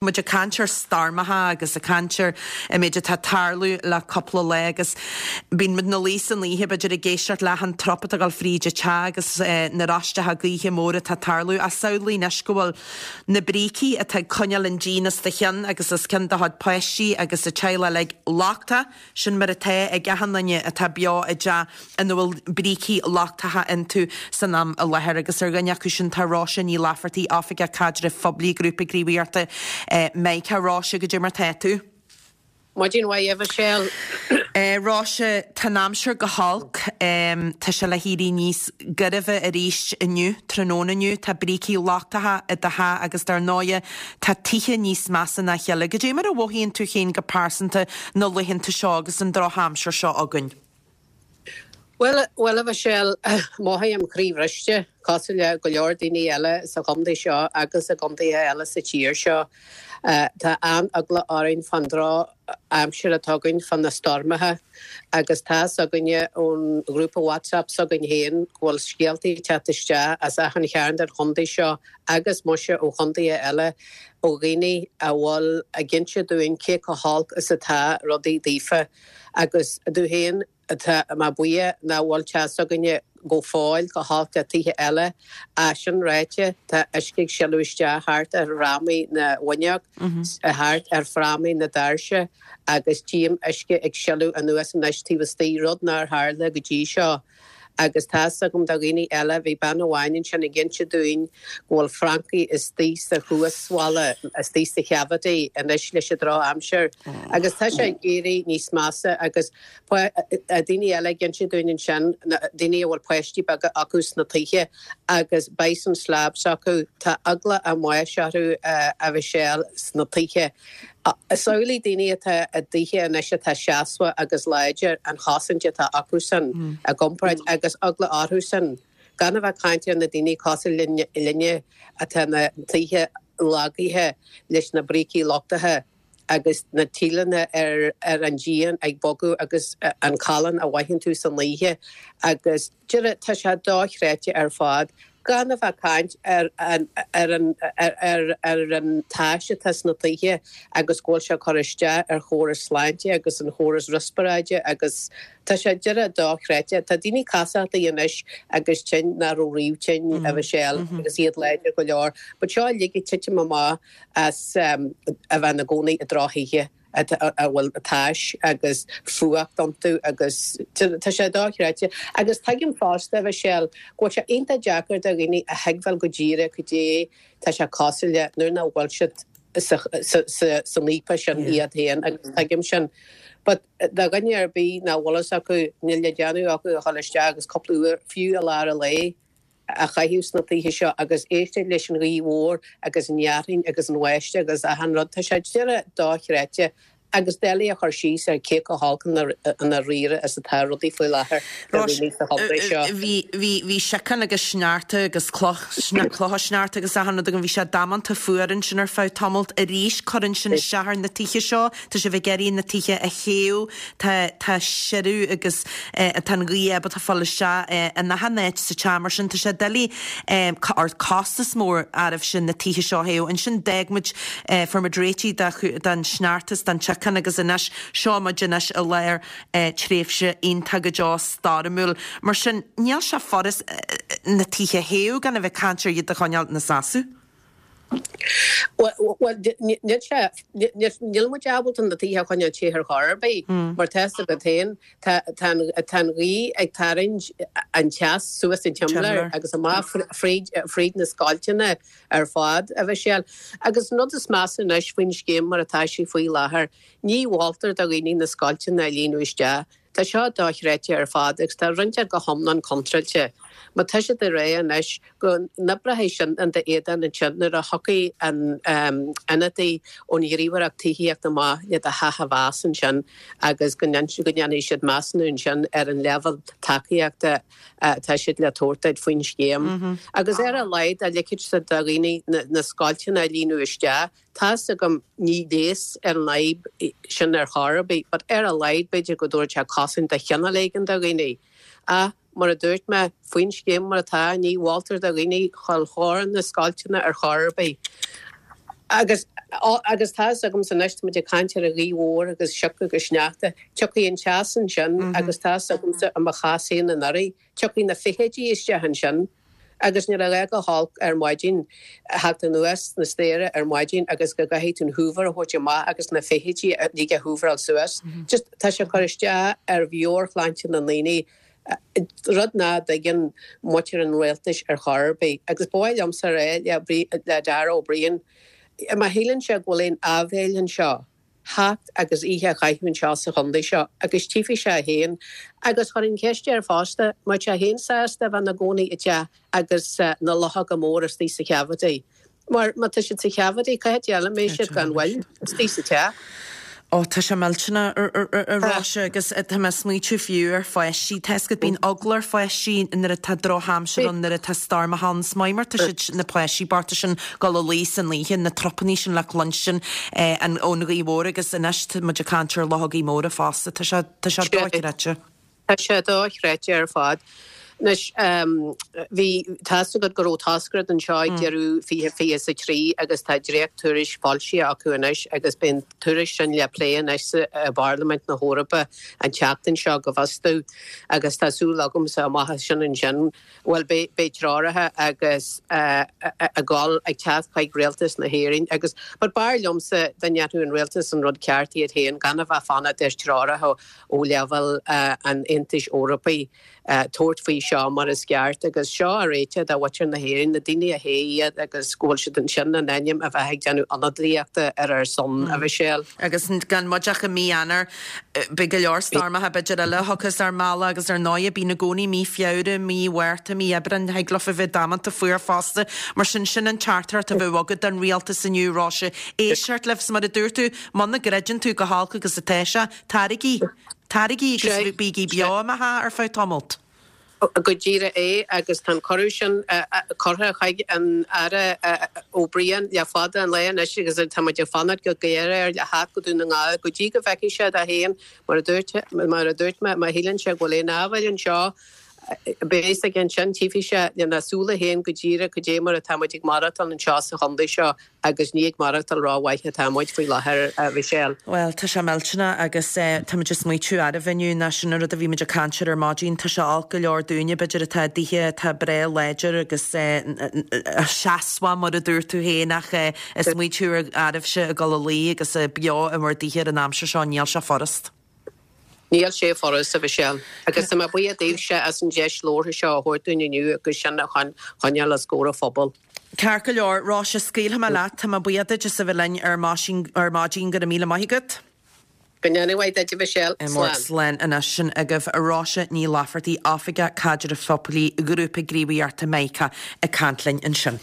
Muid ag caint ar stoirmeacha agus ag caint ar an méid atá ag tarlú le cúpla lá agus bíonn muid ina luí san oíche b'fhéidir ag éisteacht le achan trup atá ag dul fríd an teach agus na roisteacha gaoithe móra atá ag tarlú. Ach samhlaigh anois go bhfuil na brící atá ag coinneáil an díon os do chionn agus os cionn do chuid páistí agus an teaghlach uilig lochtach. Sin mar atá ag achan duine atá beo i dteach ina bhfuil brící lochtacha iontu san am i láthair agus ar dhuine acu sin tá Róise Ní Laifeartaigh, Oifigeach Caidrimh Phoiblí Ghrúpa Gníomhaíochta Mica. Róise, goidé mar tá tú? Maidin mhaith, a Mhichelle. Róise, tá an aimsir go holc. Tá sé le héirí níos gairbhe arís inniu, tráthnóna inniu. Tá brící lochtacha i do theach agus dar ndóighe tá tithe níos measa ná a chéile. Goidé mar a mhothaíonn tú féin go pearsanta na laethanta seo agus an drochaimsir seo againn? Bhuel, bhuel a Mhichelle, mothaím croíbhriste, cosúil le go leor daoine eile sa chontae seo agus i gcontaetha eile sa tír seo. Tá an-eagla orainn fán drochaimsir atá againn, fá na stoirmeacha agus tá's againne ón ghrúpa WhatsApp s'againn féin go bhfuil scéaltaí ag teacht isteach as achan chearn den chontae seo agus muise ó chontaetha eile ó dhaoine a bhfuil ag inse dúinn cé chomh holc is atá rudaí daofa agus domh féin Tá mé buíoch nach bhfuil teach s'againne go fóill chomh holc le tithe eile. Ach sin ráite, tá uisce ag sileadh isteach thart ar fhrámaí na bhfuinneog, thart ar fhrámaí na doirse agus tchím uisce ag sileadh anuas anois taobh istigh, rud nár tharla go dtí seo. Agus tá's agam do dhaoine eile, bhí bean amháin ansin ag inse dúinn go bhfuil francaigh istigh sa chuasbhalla, istigh sa chavity anois leis an drochaimsir. Agus tá sé ag éirí níos measa agus daoine eile ag inse dúinn ansin, daoine a bhfuil páistí beaga acu sna tithe agus bison slabs acu, tá eagla a mbáis orthu a Mhichelle sna tithe. Samhlaigh daoine atá i dtithe anois atá seasmhach agus láidir, an chosaint atá acusan i gcomparáid agus eagla orthusan, gan a bheith ag caint ar na daoine cosúil linne atá ina dtithe lagaithe leis na brící lochtacha. agus na tíleanna ar ar an díon ag bogadh agus an callán a mhothaíonn tú san oíche agus deireadh tá sé dochreidte ar fad gan a bheith ag caint ar an ar an ar ar an tais atá sna tithe agus go bhfuil sé ag cur isteach ar chóras sláinte agus an chóras riospráide agus tá sé deireadh dochreidte. Tá daoine casachtaí anois agus tinn nach raibh riamh tinn a Mhichelle agus iad láidir go leor but seo uilig ag titim amach as a bheith ina gcónaí i drochthithe a bhfuil tais agus fuacht iontu agus tá sé dochreidte. Agus tuigim fosta, a Mhichelle, go bhfuil sé iontach deacair do dhaoine a thuigbheáil go díreach cad é tá sé cosúil le nuair nach bhfuil siad san fhaopa sin iad féin agus tuigim sin. But do dhuine ar bith nach bhfuil fhios acu, níl le déanamh acu ach dul isteach agus cúpla uair, fiú i lár an lae, a chaitheamh sna tithe seo agus éisteacht leis an ghaoth mhór agus an fhearthainn agus an bháisteach agus achan rud. Tá sé deireadh dochreidte agus doiligh a chur síos ar cé chomh holc i ndáiríre is atá rudaí faoi láthair do dhaoine sa chontae seo. Bhí, bhí, bhí síocán agus sneachta agus cloch, clocha sneachta agus achan rud againn. Bhí sé damanta fuar ansin ar feadh tamalt. Arís cuireann sin isteach ar na tithe seo. Tá sibh ag iarraidh na tithe a théamh. Tá, tá siorradh agus tá an ghaoth ábalta fáil isteach in achan áit sa teach mar sin tá sé doiligh or costas mór oraibhse na tithe seo a théamh. Ansin d'fhág muid, fuair muid réitithe de, den sneachta is den tsíocán agus anois seo muid anois i lár tréimhse iontach go deo stoirmiúil. Mar sin níl sé furast na tithe a théamh gan a bheith ag caint ar iad a choinneáil ina seasamh. Bhuel, níl sé, níl muid ábalta na tithe a choinneáil te ar chor ar bith, mar tá fhios agat féin, tá an ghaoth ag tarraingt an teas suas an tsimléar agus amach fríd, fríd na scoilteanna ar fad, a Mhichelle. Agus an rud is measa anois faoin scéim mar atá sí faoi láthair, ní mholtar do dhaoine na scoilteanna a líonadh isteach. Tá seo dochreidte ar fad agus tá roinnt acu go hiomlán contráilte. Má tá siad ag rá anois go n-oibreoidh sin in d'éadan ansin nuair a thiocfaidh an ionadaí ón Ghníomhaireacht Tithíochta amach le do theach a mheas ansin agus go ndéanfaidh siad measúnú ansin ar an leibhéal tacaíochta atá siad le tabhairt duit faoin scéim. Agus ar a laghad dá ligfeadh siad do dhaoine na scoilteanna a líonadh isteach, Tá's agam ní leigheas ar an fhadhb sin ar chor ar bith, but ar a laghad b'fhéidir go dtabharfadh sé cosaint de chineál éigin do dhaoine. Ach, mar a dúirt mé, faoin scéim mar atá, ní mholtar do dhaoine dhul chóir na scoilteanna ar chor ar bith. Agus, agus tá fhios agamsa anois, tá muid ag caint ar an ghaoth mhór agus sioc agus sneachta, tiocfaidh an teas ansin agus tá fhios agamsa i mo chás féin anuraidh, tiocfaidh na feithidí isteach ansin agus níl a dhath chomh holc ar maidin, theacht anuas na staighre ar maidin agus go gcaithfidh tú an hoover a thabhairt amach agus na feithidí uilig a hooveráil suas. Just tá sé ag cur isteach ar mheabhairshláinte na ndaoine, rud nach dtuigeann muintir an rialtais ar chor ar bith. Agus ba mhaith liomsa a rá le Darragh O'Brien, má shíleann sé go bhfuil aon áibhéil anseo, theacht agus oíche a chaitheamh anseo sa chontae seo agus tchífidh sé féin. Agus chuirfinn ceist air fosta, an mbeadh sé féin sásta a bheith ina gcónaí i dteach agus na luchóga móra istigh sa cavity? Mar má tá siad sa cavity, cá háit eile a mbeidh siad gan mhoill istigh sa teach? Ó, tá sé millteanach, a Róise, agus tá mé ag smaoitiú fiú ar pháistí. Tá fhios agat, bíonn eagla ar pháistí nuair atá drochaimsir ann, nuair atá stoirmeacha ann. Is maith mar tá siad, na páistí bochta sin, dul a luí san oíche, na trupannaí sin le cluinstin ón ghaoth mhór agus anois tá muid ag caint ar luchógaí móra fosta. Tá sé, tá sé dochreidte. Tá sé dochreidte ar fad. Anois, bhí, tá fhios agat go raibh toscaireacht anseo ag deireadh 2023 agus tá dréacht-tuairisc foilsithe acu anois agus beidh an tuairisc sin le plé anois i bParlaimint na hEorpa an tseachtain seo go bhfios domh agus tá súil agamsa amach as sin ansin, bhuel, beidh treoracha agus ag dul ag teacht chuig rialtas na hÉireann agus but b'fhearr liomsa dá ndéanfadh an rialtas an rud ceart iad féin gan a bheith fanacht ar treoracha ó leibhéal an Aontais Eorpaigh tabhairt faoi seo mar is ceart agus seo a réiteach do mhuintir na hÉireann, na daoine a thogh iad agus go bhfuil siad ansin in ainm a bheith ag déanamh ionadaíochta ar ár son, a Mhichelle. Agus gan muid ach i mí Eanáir, beidh go leor stoirmeacha b'fhéidir eile a thiocfas ár mbealach agus ar ndóighe bíonn i gcónaí mí Feabhra, mí Mhárta, mí Aibreáin, thig leofa bheith damanta fuar fosta. Mar sin, sin an teachtaireacht a bheadh agat don rialtas inniu, Róise. Éisteacht libh, 's mar a dúirt tú, muna gcreideann tú chomh holc agus atá sé, Taraigí! Taraigí agus bígí beo i mo theach ar feadh tamalt. Go díreach é, agus tá an cuireadh sin curtha chuig an Aire O'Brien le fada an lá anois agus tá muid ag fanacht go géar air le theacht go Dún na nGall go dtí go bhfeicfidh sé dó féin, mar a dúirt, mar a dúirt mé, má shíleann sé go bhfuil aon áibhéil anseo, beidh a fhios aige ansin, tchífidh sé lena súile féin go díreach cad é mar atá muid ag maireachtáil anseo sa chontae seo. Agus ní ag maireachtáil rómhaith atá muid faoi láthair, a Mhichelle. Bhuel, tá sé millteanach agus tá muid ag smaoitiú arbh inniu ná sin an rud a bhí muid ag caint air ar maidin. Tá sé olc go leor dúinne, b'fhéidir, atá i dtithe atá breá láidir agus seasmhach, mar a dúirt tú féin, ach ag smaoitiú ar oraibhse ag dul a luí agus beo i bhur dtithe ar an aimsir seo, níl sé furast. Níl sé furast, a Mhichelle, agus tá mé buíoch daoibhse as an deis labhartha seo a thabhairt dúinn inniu agus sinn a choinneáil os comhair an phobail. Ceart go leor, Róise, scaoilfidh mé leat. Tá mé buíoch duit as a bheith linn ar maidin. Go raibh míle maith agat. Go ndéana mhaith duit, a Mhichelle. Slán. Slán anois. Sin agaibh Róise Ní Laifeartaigh, Oifigeach Caidrimh Phoiblí Ghrúpa Gníomhaíochta Mica, ag caint linn ansin.